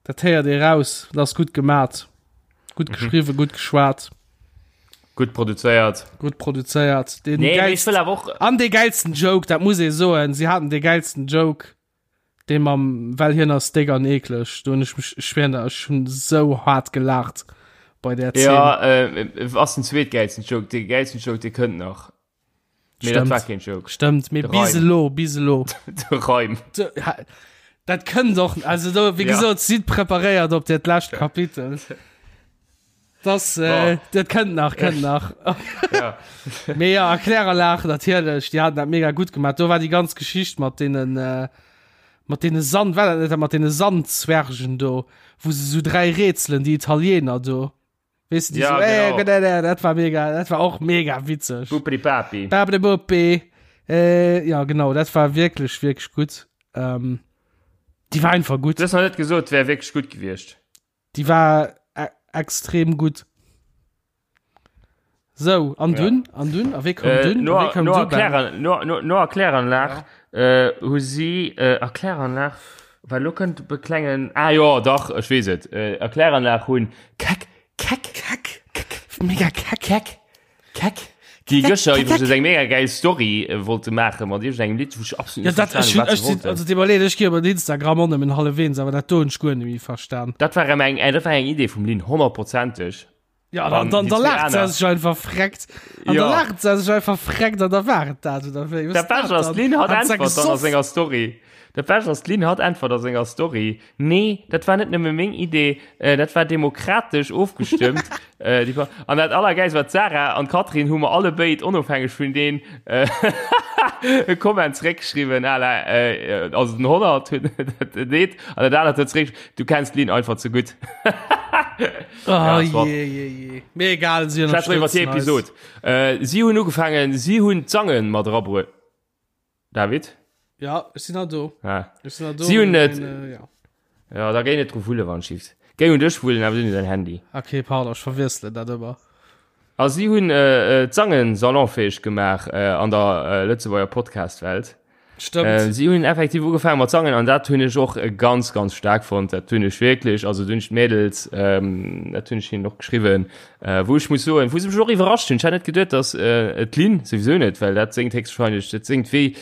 Dat héiert ee raus, dat ass gutt gemat. Gutt Mhm. geschriwwen, gutt geschwat, Gutt produzéiert. gutt produzéiert. Den Nee, mee ech geilsten, wëll awer och an dee geilsten Joke, dat muss ee soen, si haten dee geilsten Joke. Dee mam well hien ass déck an eekleg, do hunn ech mech, ech schwéieren der, ech hunn esou haart gelaacht bei där Zeen. Ja, äh, ass den zweetgeilsten Joke, dee geilsten Joke, dee kënnt nach. Mee dat Stëmmt. war keen Joke. Stëmmt, mee De bis Reim. elo, bis elo. De Reim. De, ha, dat kënnt och, also do, wéi Ja. gesot, sidd preparéiert op dat lescht Kapitel. Das, äh, dat kënnt nach, kënnt nach. Ja. Mee ja, a Kläranlag natierlech, déi haten dat mega gutt gemaach. Do war déi ganz Geschicht mat deenen, äh, mat deene Sand, war dat net dat mat deene Sandzwergen do, wou se sou dräi Rätselen, déi Italiener do. Weess de, déi Ja, sou, äh, genau. genau, äh, dat war mega, dat war och mega witzeg. Bupri Papi. Babri Buppi. Äh, ja, genau, dat war wierklech, wierklech gutt. Ähm, déi war einfach gutt. Du hues nach net gesot, wär wierklech gutt gewiescht. Déi war e extrem gutt. Sou, an dunn, an dunn, a wéi koum Äh, dunn, no, a wéi koum no, du Ben? Erkläran, no, no, no Erkläranlag äh, hu si äh, Erkläranlag, well lo kënnt be klengen ah jo dach ech weess et äh, Erkläranlag hunn keck keck Keck, mega keck. keck keck déi gëschter iwwregens eng mega geil Story äh, wollte maache mat iergendengem Lidd wou ech absolut Ja, net dat, ech, verstan hunn, wat ech, se sinn, wollten. also deet mer leed, ech gi op Instagram och nëmmen hallefweens, awer dat do hunn ech guer net méi verstan. Dat war eng, äh, dat war eng Idee vum Lynn, honnertprozenteg. Ja, dann, dann, da lacht se sech einfach freckt. An ja. da lacht se sech einfach freckt an da war dat oder wéi. Dat Bescht ass, d'Lynn hat äntwert dann a senger Story. Dat Bescht ass, d'Lynn hat äntwert a senger Story. Nee, dat war net nëmme meng Idee, äh, dat war demokratesch ofgestëmmt. äh, die, an dat Allergeist war d'Sarah an d'Katrin hu mer alle béid onofhängeg vun deen äh, e Comment zréckgeschriwwen, à la, äh, also den 100 huet dat deet an dat anert huet zréck, du kenns d'Lynn einfach ze gutt. Oh, ja, je, je, je. Mir egal, sie iwwer die Episode. Äh, sie hunn ugefangen, sie hunn d'Sangen mat erabruet. David? Ja, ech sinn do. Ah. Ech sinn do. Sie hunn net. Äh, ja. ja, da géi net dru wulle wann schift. Géi un dech wullen, awer du dein Handy. Okay, pardon, ech verwiessele dat ëmmer. A si hunn äh, äh, d'Sangen salonfäeg gemaach äh, an der äh, Lëtzebuerger Podcast-Welt. Stëmmt. Äh, si hunn effektiv ugefaangen mat sangen an dat hunn ech och äh, ganz ganz staark fonnt. Dat hunn ech wierklech, also dunn ech d'Mädels, ähm, dat hunn ech hinnen och geschriwwen, äh, wou ech muss soen, wou se mech och iwwerrascht hunn. Ech hat net geduet, dass äh, d'Lynn souwisou net, well dat séngt héchstwahrscheinlech, dat séngt wéi,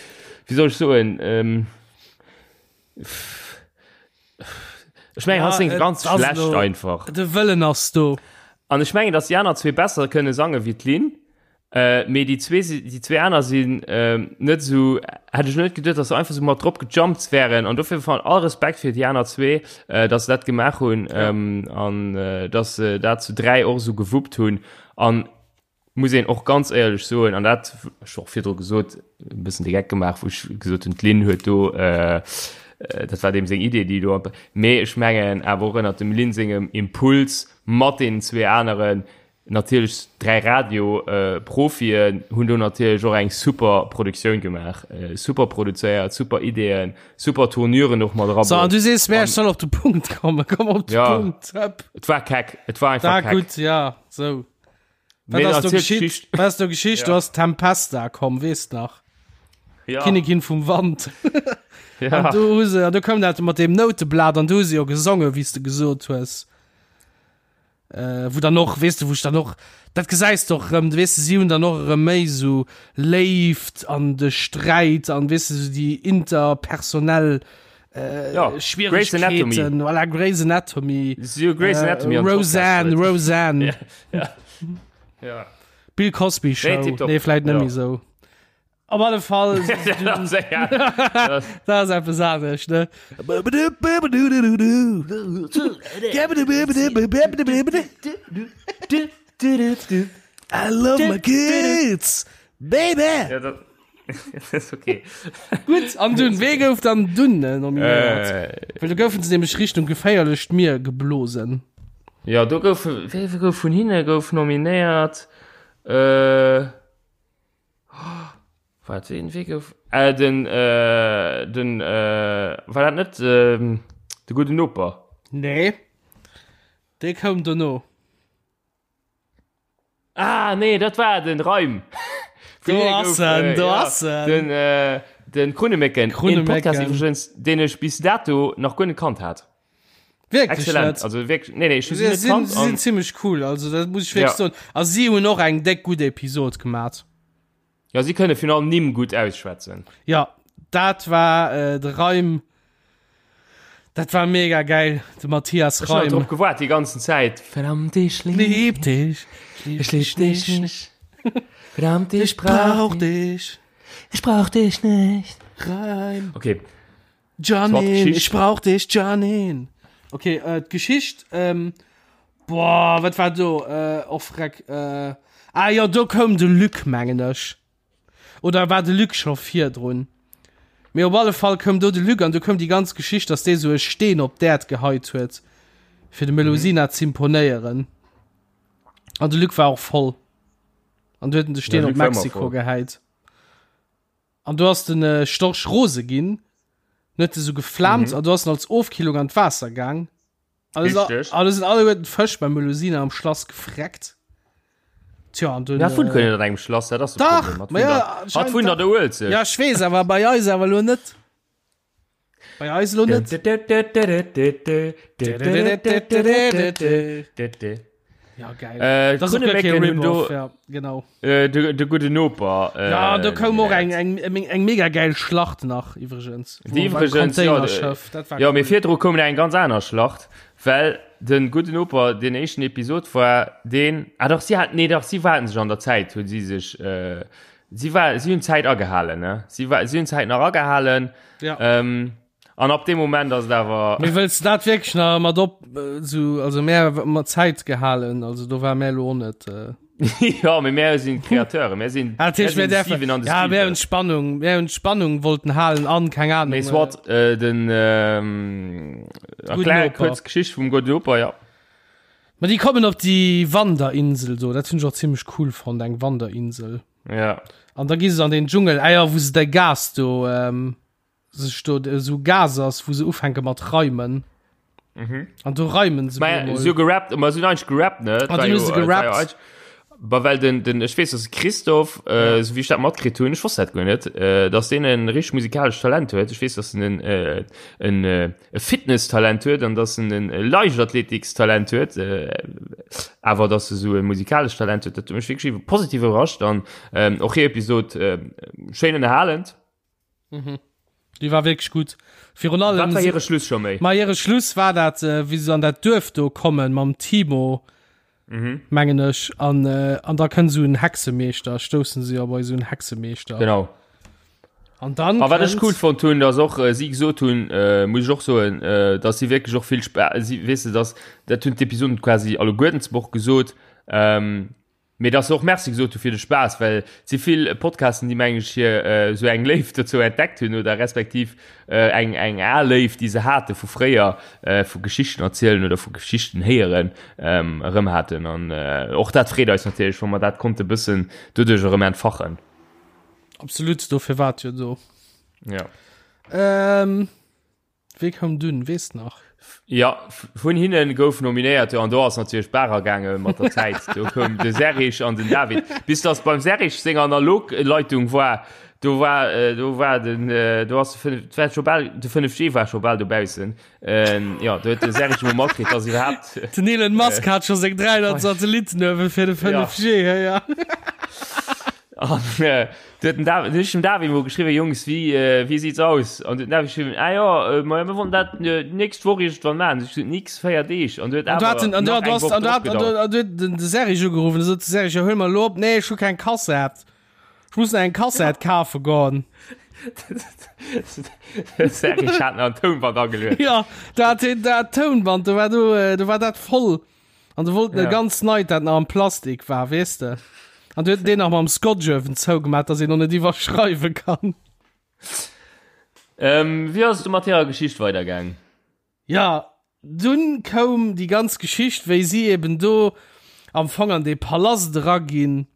wéi soll ech soen, ähm, ech mengen, Ja, hatt séngt et ganz ass schlecht elo- einfach. De Wëllen ass do. An ech mengen, dass déi aner zwee besser kënne sange wéi d'Lynn. Äh, mee déi zwee, déi zwee aner sinn ähm, net esou, hätt ech net geduet, dass se einfach sou mat drop gejumpt wären. An dofir van all Respekt fir déi aner zwee, äh, dass se dat gemaach hunn Ja. ähm, an äh, dass se dat zu dräi och esou gewuppt hunn. An muss een och ganz éierlech soen, an dat ech och virdru gesot, e bëssen de Geck gemaach, wou ech gesot hunn, d'Lynn huet do, äh, äh, dat war deem seng Idee, déi do, mee ech mengen awer och ënnert dem Lynn sengem Impuls mat deenen zwee aneren, Natierlech 3 Radio Profien hunn do natierlech och eng super Produktioun gemaach, super produzéiert, super Ideeën, super Tournuren och mat So, an erabruecht. du sees mir, ech soll op de Punkt kommen. Komm op de Ja. Punkt. Hëpp. Et war keck, et war einfach Da keck. gutt, ja, sou. Wat Mee ass do erziel geschitt? d'Geschicht. Wat ass do geschicht? Ja. Du ass Tempesta komm, weess nach. Ja, Kinnigin vum Wand. ja. An du hu se, an du koum dat mat deem Nouteblat an du hu se jo gesongen, wéi s de gesot hues. Äh, wou dann och, weess de, wou ech dann och, dat gesäis de och erëm, weess de, si hunn dann och erëm méi esou Léift an de Sträit an, weess de, esou déi interpersonell äh, Ja, Grey's Anatomy. Schwieregkeeten, voilà, Grey's Anatomy, Si hu Grey's Anatomy äh, an Podcast Roseanne, huet. Roseanne, Ja, ja. Ja. Bill Cosby Show, Nee, tipptopp. nee, vläit net Ja. méi esou. Op alle Fall, dat ass eppes anescht, ne? I love my kids, baby! Ja, dat ist okay. Gutt, an dunn, wee gouf dann dunn äh, nominéiert? Äh, Well do goufen se nämlech Richtung geféierlecht Mier geblosen. ja, do gouf, wee gouf vun hinne gouf nominéiert? Äh, Wat ween wee gouf äh, den äh, den äh, war dat net ähm, de gudden Noper? Nee. Dee koum dono. Ah nee, dat war den Reim. Do ass en, do ass en. Den äh, den Krunnemécken, Krunnemécken. Podcast iwwregens, deen ech bis dato nach guer net kannt hat. Wierklech Excellent. net. Also wirklich, nee, nee, ich Sie net sinn, kannt sie sinn an ziemlech cool, also dat muss ich wirklich Ja. soen. A si hunn och eng déck gutt Episod gemat. ja, sie kënne virun allem Nimm gutt ausschwätzen. Ja, dat war äh, de Reim. Dat war mega geil, de Matthias Ich hab Reim. drop gewaart die ganzen Zeit. Verdammt, ich lieb, Lieb dich, ich lieb dich nicht. Verdammt, ich brauch brauch dich. Ich brauch dich nicht. Reim. Okay, Janine, Geschicht. ich brauch dich, Janine. Okay, äh, d'Geschicht, ähm, boah, wat war do? Äh, och freck, äh, ah jo, do koum de Luc, mengen ech. Oder war de Luc scho virdrun? Mee op alle Fall koum do de Luc an do koum déi ganz Geschicht, dass dee sou e Steen op d'Äerd geheit huet, fir dem Melusina mhm. z'imponéieren. An de Luc war och voll. An du huet en de Steen Ja, op Luc war ëmmer Mexiko voll. geheit. An do ass den äh, Storch rose ginn, en huet esou geflaamt mhm. an du ass en als Ofkillung an d'Waasser gaang. Alles, Richtig. alles sind alleguerten Fësch beim Melusina am Schlass gefreckt. Tja, an dunn, Ja, vun äh, kënne an engem Schlass, dat ass de Dach, Problem. Hat ma vun ja, der- Hat anscheinend vun der der Uelzecht. Ja, ich weess, awer bei eis awer lo net. Bei eis lo net. Ja, geil. Äh, das ist auch gar kein Krunnemécken hunn Rip-Off, do ja, genau. äh, de, de gudden Noper. Äh, Ja, do koum och nominéiert. eng, eng, eng mega geil Schlacht nach, iwwregens. Déi iwwregens, ja, Containerschiff, dat war Ja, mee cool. virdru koum eng ganz aner Schlacht, well. den gudden Noper, den éischten Episod war deen, ah dach, si hat, nee dach, si waren sech an der Zäit, hunn si sech, äh, si war, si hunn d'Zäit agehalen, ne? Si war, si hunn d'Zäit nach agehalen. Ja. Ähm, an ab dem Moment ass et awer. Mee wëlls de dat wierklech nach mat op, sou, also mär mat Zäit gehalen, also do war mär elo och net. Äh ja, mee mär sinn d'Createure, mär sinn, Ah, dat heescht, mär mir sinn däerfen, Steven an de ja, mär hunn Spielberg. d'Spannung, mär hunn d'Spannung wollten halen an, keng Ahnung. Mee Äh, soit, äh, den, ähm, Gudden erklär Noper. kuerz d'Geschicht vum gudden Noper, ja. Ma déi kommen op déi Wanderinsel do, dat hunn ech och zimmlech cool fonnt, eng Wanderinsel. Ja. An da gi se an den Dschungel, ah ja, wou se de Gas do, ähm, sech do esou Gas ass, wou se ufänke mat reimen. Mhm. An do reimen se. Ma se hu gerappt, ma se hunn eigentlech gerappt, ne? Ah, dunn hu se gerappt. Ba well den, den, ech weess, dass Christoph, äh, ja. so wéi ech dat matkritt hunn, ech wosst dat guer net, äh, dass deen en richteg musikalescht Talent huet. Ech weess, dass en en, äh, en, äh, e Fitness-Talent huet an dass en en Leichtathletik-Talent huet, äh, awer dass e sou e musikalescht Talent huet, dat huet mech wierklech positiv iwwerrascht an ähm, och hir Episod äh, schéin ënnerhalend. Mhm. Déi war wierklech gutt. Virun allem. Wat war hire Schluss scho méi? Ma hire Schluss war dat, äh, wéi se an dat Duerf do kommen mam Timo, mhm. mengen ech, an, äh, an da kënnt sou en Hexemeeschter, stoussen se jo bei sou en Hexemeeschter. Genau. An dann. A wat ech cool fonnt hunn, dass och äh, si gesot hunn, äh, muss ech och soen, äh, dass si wierklech och vill Spa si, weess de, dass dat hunn d'Episoden quasi alleguerten zum och gesot, ähm, Mee dass se och Merci gesot hu fir de Spaass, well et si vill Podcasten, déi mengen ech hir esou eng Léift dozou entdeckt hunn oder respektiv eng eng al Léift, déi se hate vu fréier, vu Geschichten erzielen oder vu Geschichten héieren, erëm haten. An och dat freet eis natierlech, wa mer dat konnte bëssen doduerch erëm entfachen. Absolut, dofir war et jo do. Ja. Ähm. Wee koum dunn, weess de nach? Ja, vun hinnen gouf nominéiert, jo, an do ass natierlech d'Bar agaange mat der Zäit. Do koum de Serrig an den David. Bis datt beim Serrig seng Analogleitung war, do war, do war den, do ass de 5, war scho bal, de 5G war scho bal dobaussen. Jo, do huet de Serrig emol matkritt, datt iwwerhaapt. Den Elon Musk hat scho seng 300 Satellitten uewe fir de 5G, ja. Ja. An Du huet den David, du huet dem David mol geschriwwen, Jungs, wéi, äh, wéi sieht's aus? An du huet den David geschriwwen, ah ja, äh, ma mir wollen dat äh, nächst Woch irgendwann machen. Ech gesot, nix, 4 Deeg. An du huet An du awer hat den, an du nach hat, du eng hast, Woch an du drop hat, an du, gedauert. an du huet den, de Serge ugerufen, da sot de Serge, ja, huel mal lo op, nee, ech hu keng Kassett. Ech muss nach eng Kassett kafe goen. De Serge hat nach en Tounband ageluet. Ja, da hat hien dat Tounband, do war do, äh, do war dat voll. An du wollten ja. e ganz neit, dat nach am Plastik war, weess de. An du huet deen nach mam Scotch uewen zougemat, dass een noch net iwwerschreiwe kann. Ähm, wéi ass du mat hirer Geschicht weidergaang? Ja, dunn koum déi ganz Geschicht, wéi si eben do am Fong an dee Palast eraginn.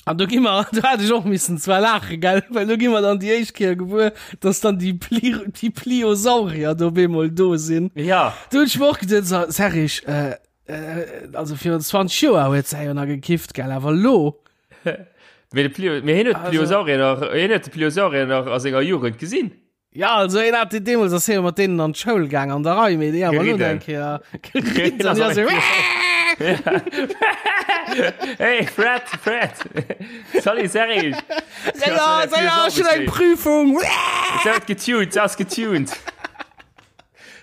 An do gi mer, do hat ech och missen zwar laache, gell, well do gi mer dann déi éischt Kéier gewuer, dass dann déi Pli, déi Pliosaurier do op eemol do sinn. Ja. Do hunn ech mer och geduet, so, Serrig, äh, äh, also virun 20 Joer huet se jo nach gekifft, gell, awer lo. Mee de Plio, mee hien huet Also- d'Pliosaurier nach, hien huet de Pliosaurier nach a senger Jugend gesinn. Ja, also een hat deemools ass hie mat deenen an d'Schoul gaang an der Rei, mee déi awer lo Geriden. eng Kéier geriden. Ja, so, Hey, Fred, Fred! Salut, Serge! ja, ja, ja, ja, ech hunn eng Prüfung. Se huet getuned, se ass getuned.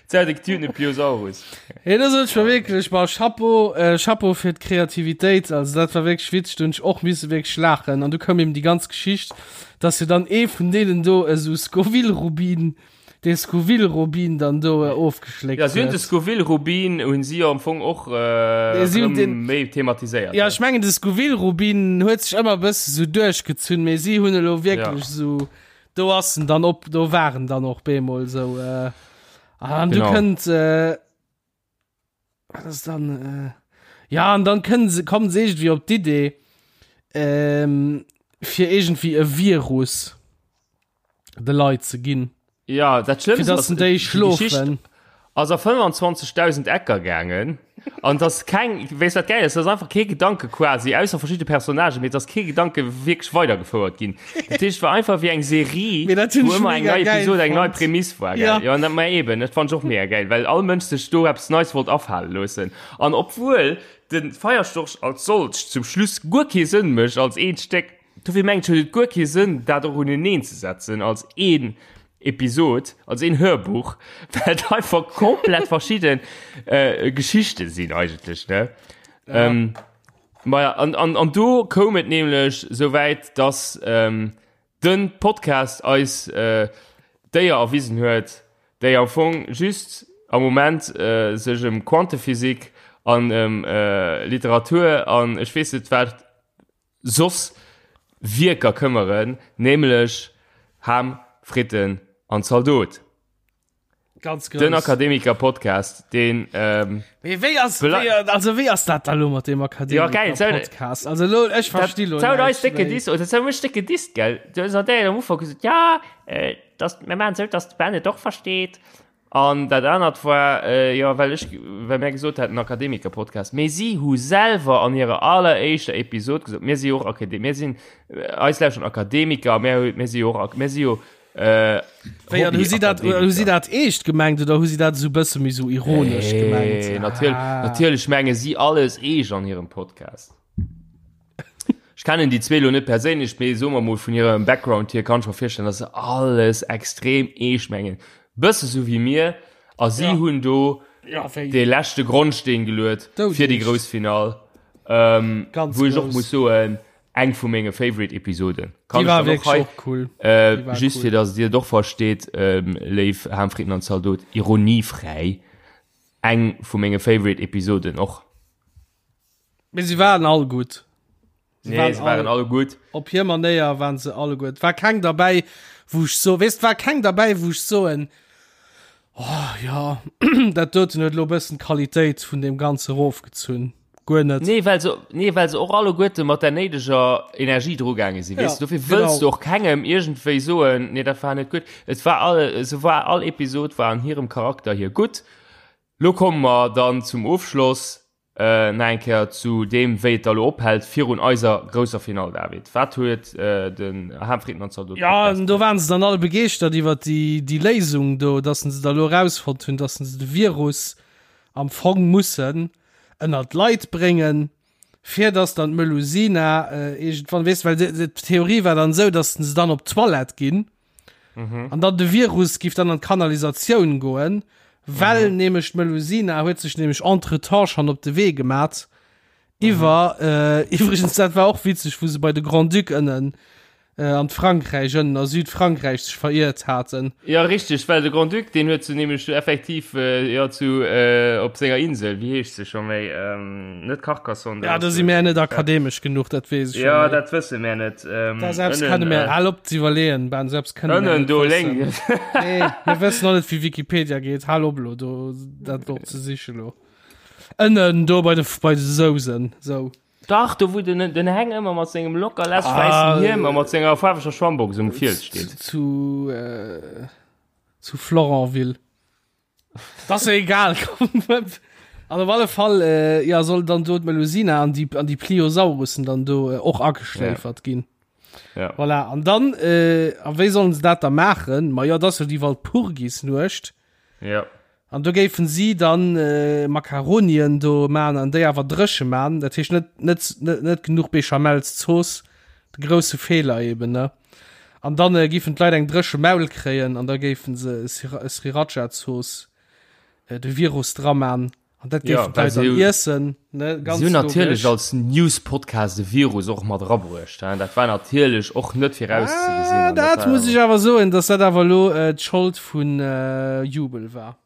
Se huet e getunte Pliosaurus. Hey, das huet war wierklech war Chapeau, äh, Chapeau fir d'Kreativitéit. Also dat war wierklech witzeg, do hunn ech och misse wierklech laachen. An du koum eben déi ganz Geschicht, dass jo dann ee vun deenen do esou Scoville-Rubin, dee Scoville-Rubin dann do äh, ofgeschléckt Ja, si hunn de huet. Scoville-Rubin hunn si jo am Fong och äh, Si hunn erëm den- méi thematiséiert. Ja, ech mengen de Scoville-Rubin huet sech ëmmer e bësse sou duerchgezunn, mee si hunn elo wierklech Ja. sou Do ass en dann op, do war en dann och bemol sou. Äh, an du Genau. kënnt äh, wat ass dann äh, ja an dann kënnen se kommen se irgendwie op d'Idee ähm, fir irgendwie e Virus de Leit ze ginn. Ja, dat Fir Schlëmmste dass ass, en déi déi Geschicht schlofen. ass a 25.000 Ecker gaangen an dass keng, weess wat geil ass, dass einfach kee Gedanke quasi, ausser verschidde Personnagen, mee dass kee Gedanke wierklech weidergefouert ginn. Dat heescht, et war einfach wéi eng Serie, Mee dat hunn wou ech ëmmer eng mega nei geil Episode, eng nei fonnt. Prämiss war, gell? Ja. Ja, an dat, ma eben, dat fand ech och mega geil, well all Mënsch sech do eppes Neis wollt afale loossen. An obwuel de Feierstorch als solcht zum Schluss guer kee Sënn mécht als eent Stéck, dofir mengen ech, huet et guer kee Sënn, dat och uneneen ze setzen als een. Episod, als een Hörbuch, well et einfach komplett verschidden äh, Geschichte sinn eigentlech, ne? Ja. Ähm, ma ja, an, an, an do koum et nämlech souwäit, dass ähm, den Podcast eis äh, Déier erwisen huet, déi am Fong just am Moment äh, sech ëm Quantephysik an ëm äh, Literatur an ech weess net wat soss Wierker këmmeren, nämlech Ham, Fritten an Zaldot. Ganz grouss. Den Akademiker-Podcast, deen. Ähm, Mee wéi ass, wéi, also wéi ass dat da lo mat deem Akademiker-Podcast? Ja, also lo, ech versti lo näischt. Eis décke Diss, oder zou mech décke Diss, gell? Du hues an der am Ufank gesot, ja, äh, das, mir maachen sou, dass de Ben et och versteet. An dat anert war, äh, jo, well ech, well mär gesot haten Akademiker-Podcast. Mee si hu selwer an hirer alleréischter Episod gesot, mir si jo och Akademiker, mir sinn, eis lauschteren Akademiker, mir hu, mir si jo och, mir si jo Äh, Wéi, an hu si dat, hu si dat eescht gemengt oder hu si dat esou bësse méi sou ironesch hey, gemengt? Natierlech, ah. natierlech menge si alles eescht an hirem Podcast. Ech kennen déi zwee lo net perséinlech, mee soe mer mol vun hirem Background hier kann ech mer virstellen, dass se alles extrem eescht mengen. Bësse sou wéi mir a si ja. hunn do ja, de leschte Grondsteen geluet fir déi grouss Final. Ähm, Ganz wou ech och muss soen, eng vu menge Favorite Episoden. Kann déi war wierklech och cool. Äh, just cool. fir dass dir et och versteet, ähm, léif Ham, Fritten an Zaldot, ironiefräi, eng vu menge Favorite Episoden och. Mee se waren all gutt. Se nee, waren, se waren all, all gutt. Op hir Manéier waren se alle gutt. War keng derbäi, wou ech so, weess, war keng derbäi, wou ech soen, oh ja, dat doten huet lo bëssen d'Qualitéit vun deem Ganze rofgezunn. Guer net. Nee, well se, nee, well se och alleguerte mat der néideger Energie drugaange sinn, weess du. Dofir wëlls du och kengem iergendwéi soen, nee, dat war net gutt. Et war all, se war, all Episod war an hirem Charakter hier gutt. Lo komme mer dann zum Ofschloss nach eng Kéier zu deem, wéi et da lo ophält virun eiser grousser Finall, David. Wat huet den Ham Fritten an Zaldot Jo, an do waren se dann all begeeschtert iwwer déi, déi Léisung do, dass se da lo erausfonnt hunn, dass se de Virus am Fong mussen ënner d'Leit bréngen, fir dass dann d'Melusina iergendwann, weess, well d'Theorie war dann esou, dass se dann op d'Toilette ginn mhm. an dann de Virus giff dann an d'Kanalisatioun goen, well mhm. nämlech d'Melusina huet sech nämlech entretemps schon op de Wee gemat iwwer mhm. äh, iwwregens dat war och witzeg, wou se bei de Grand-Duc ënnen äh, an Frankräich ënnen a Südfrankräich sech veriert haten. Ja richtig, well de Grand-Duc deen huet se nämlech effektiv äh, ja, zu äh, op senger Insel, wéi heescht se scho méi ähm, net Carcassonne. Ja, da si mär net akademesch genuch, dat weess ech. Ja, dat wësse mär net. Ähm, da selbst kënne mär, hal op ze iwwerleeën, Ben, selbst kënne mär net do wëssen. Nee, mir wëssen och net wéi Wikipedia geet, hal op lo do dat op ze siche lo. Ënnen do bei de bei de Sousen, sou. Dach, do wou den, den Heng ëmmer mat sengem locker lässeg wäissen ah, Hiem a mat senger faarweger Schwammbox um Fiels steet. Zu, äh, zu Florenville. Das ist egal. An op alle Fall äh, ja, soll dann do d'Melusina an die, an die Pliosaurussen dann do äh, och ageschläfert ja. ginn. Ja. Voilà. An dann, äh, a wéi sollen se dat da maachen? Ma ja, das jo die Walpurgisnuecht. Ja. An do géifen si dann Makaronien do man an déi awer dréche man, dat heescht net net net genuch Béchamelszooss, de grousse Feeler eben ne. An dann giffen d'Leit eng dréche Maul kréien an da géifen se Sriracha-Zooss de Virus dra man an dat géifen d'Leit dann iessen ne, ganz Si hunn natierlech als News-Podcast de Virus och mat erabruecht, hein, dat war natierlech och net virauszegesinn. Ah, dat muss ech awer soen, datt dat awer elo d'Schold vun Jubel war.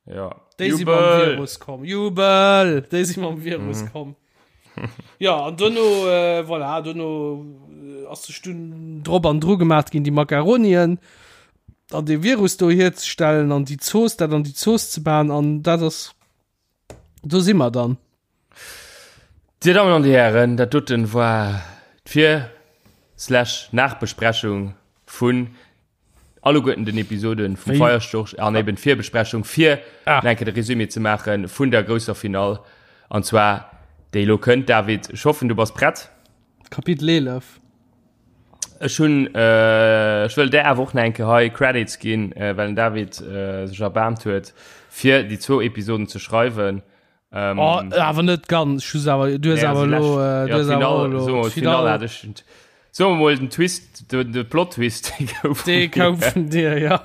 Ja. Déi si mam Virus komm. Jubel! Déi si mam Virus mhm. komm. Ja, an dono, äh, voilà, dono äh, ass sech dunn drop an dru gemaat ginn, déi Makaronien an de Virus do hierzestellen an déi Zooss, dat an déi Zooss ze man an dat ass, do si mer dann. Dir Dammen an Dir Hären, dat doten war d'Vir slash Nachbesprechung vun alleguerten den Episoden vum Feierstorch an eben d'Virbesprechung fir ah. enke de Resumé ze maachen vun der grousser Finall an zwar déi lo kënnt. David, ech hoffen du bass prett. Kapitel 11. Ech hunn äh, ech wëll där awer och nach eng Kéier hei Credits ginn, äh, well den David äh, sech erbaarmt huet fir déi zwou Episoden ze schreiwen. Ähm, oh, awer net ganz. Ech awer, du hues awer lo, äh, du hues awer lo, Finale hat ech. Soe mer mol den Twist, de, de Plot-Twist, dee gouf vun Dee koum vun dir, ja.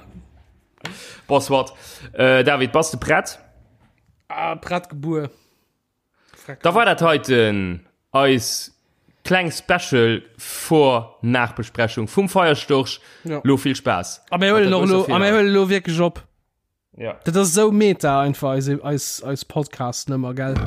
Bon, soit. Äh, David, bass de prett? Ah, prett gebuer. Da war dat heiten eis kleng Special Vor-Nachbesprechung vum Feierstorch. Ja. Lo vill Spaass. A mir huelen och lo, a mir huelen lo wierklech op. Ja. Dat ass esou meta einfach, eis, eis, eis Podcast-Nummer, gell?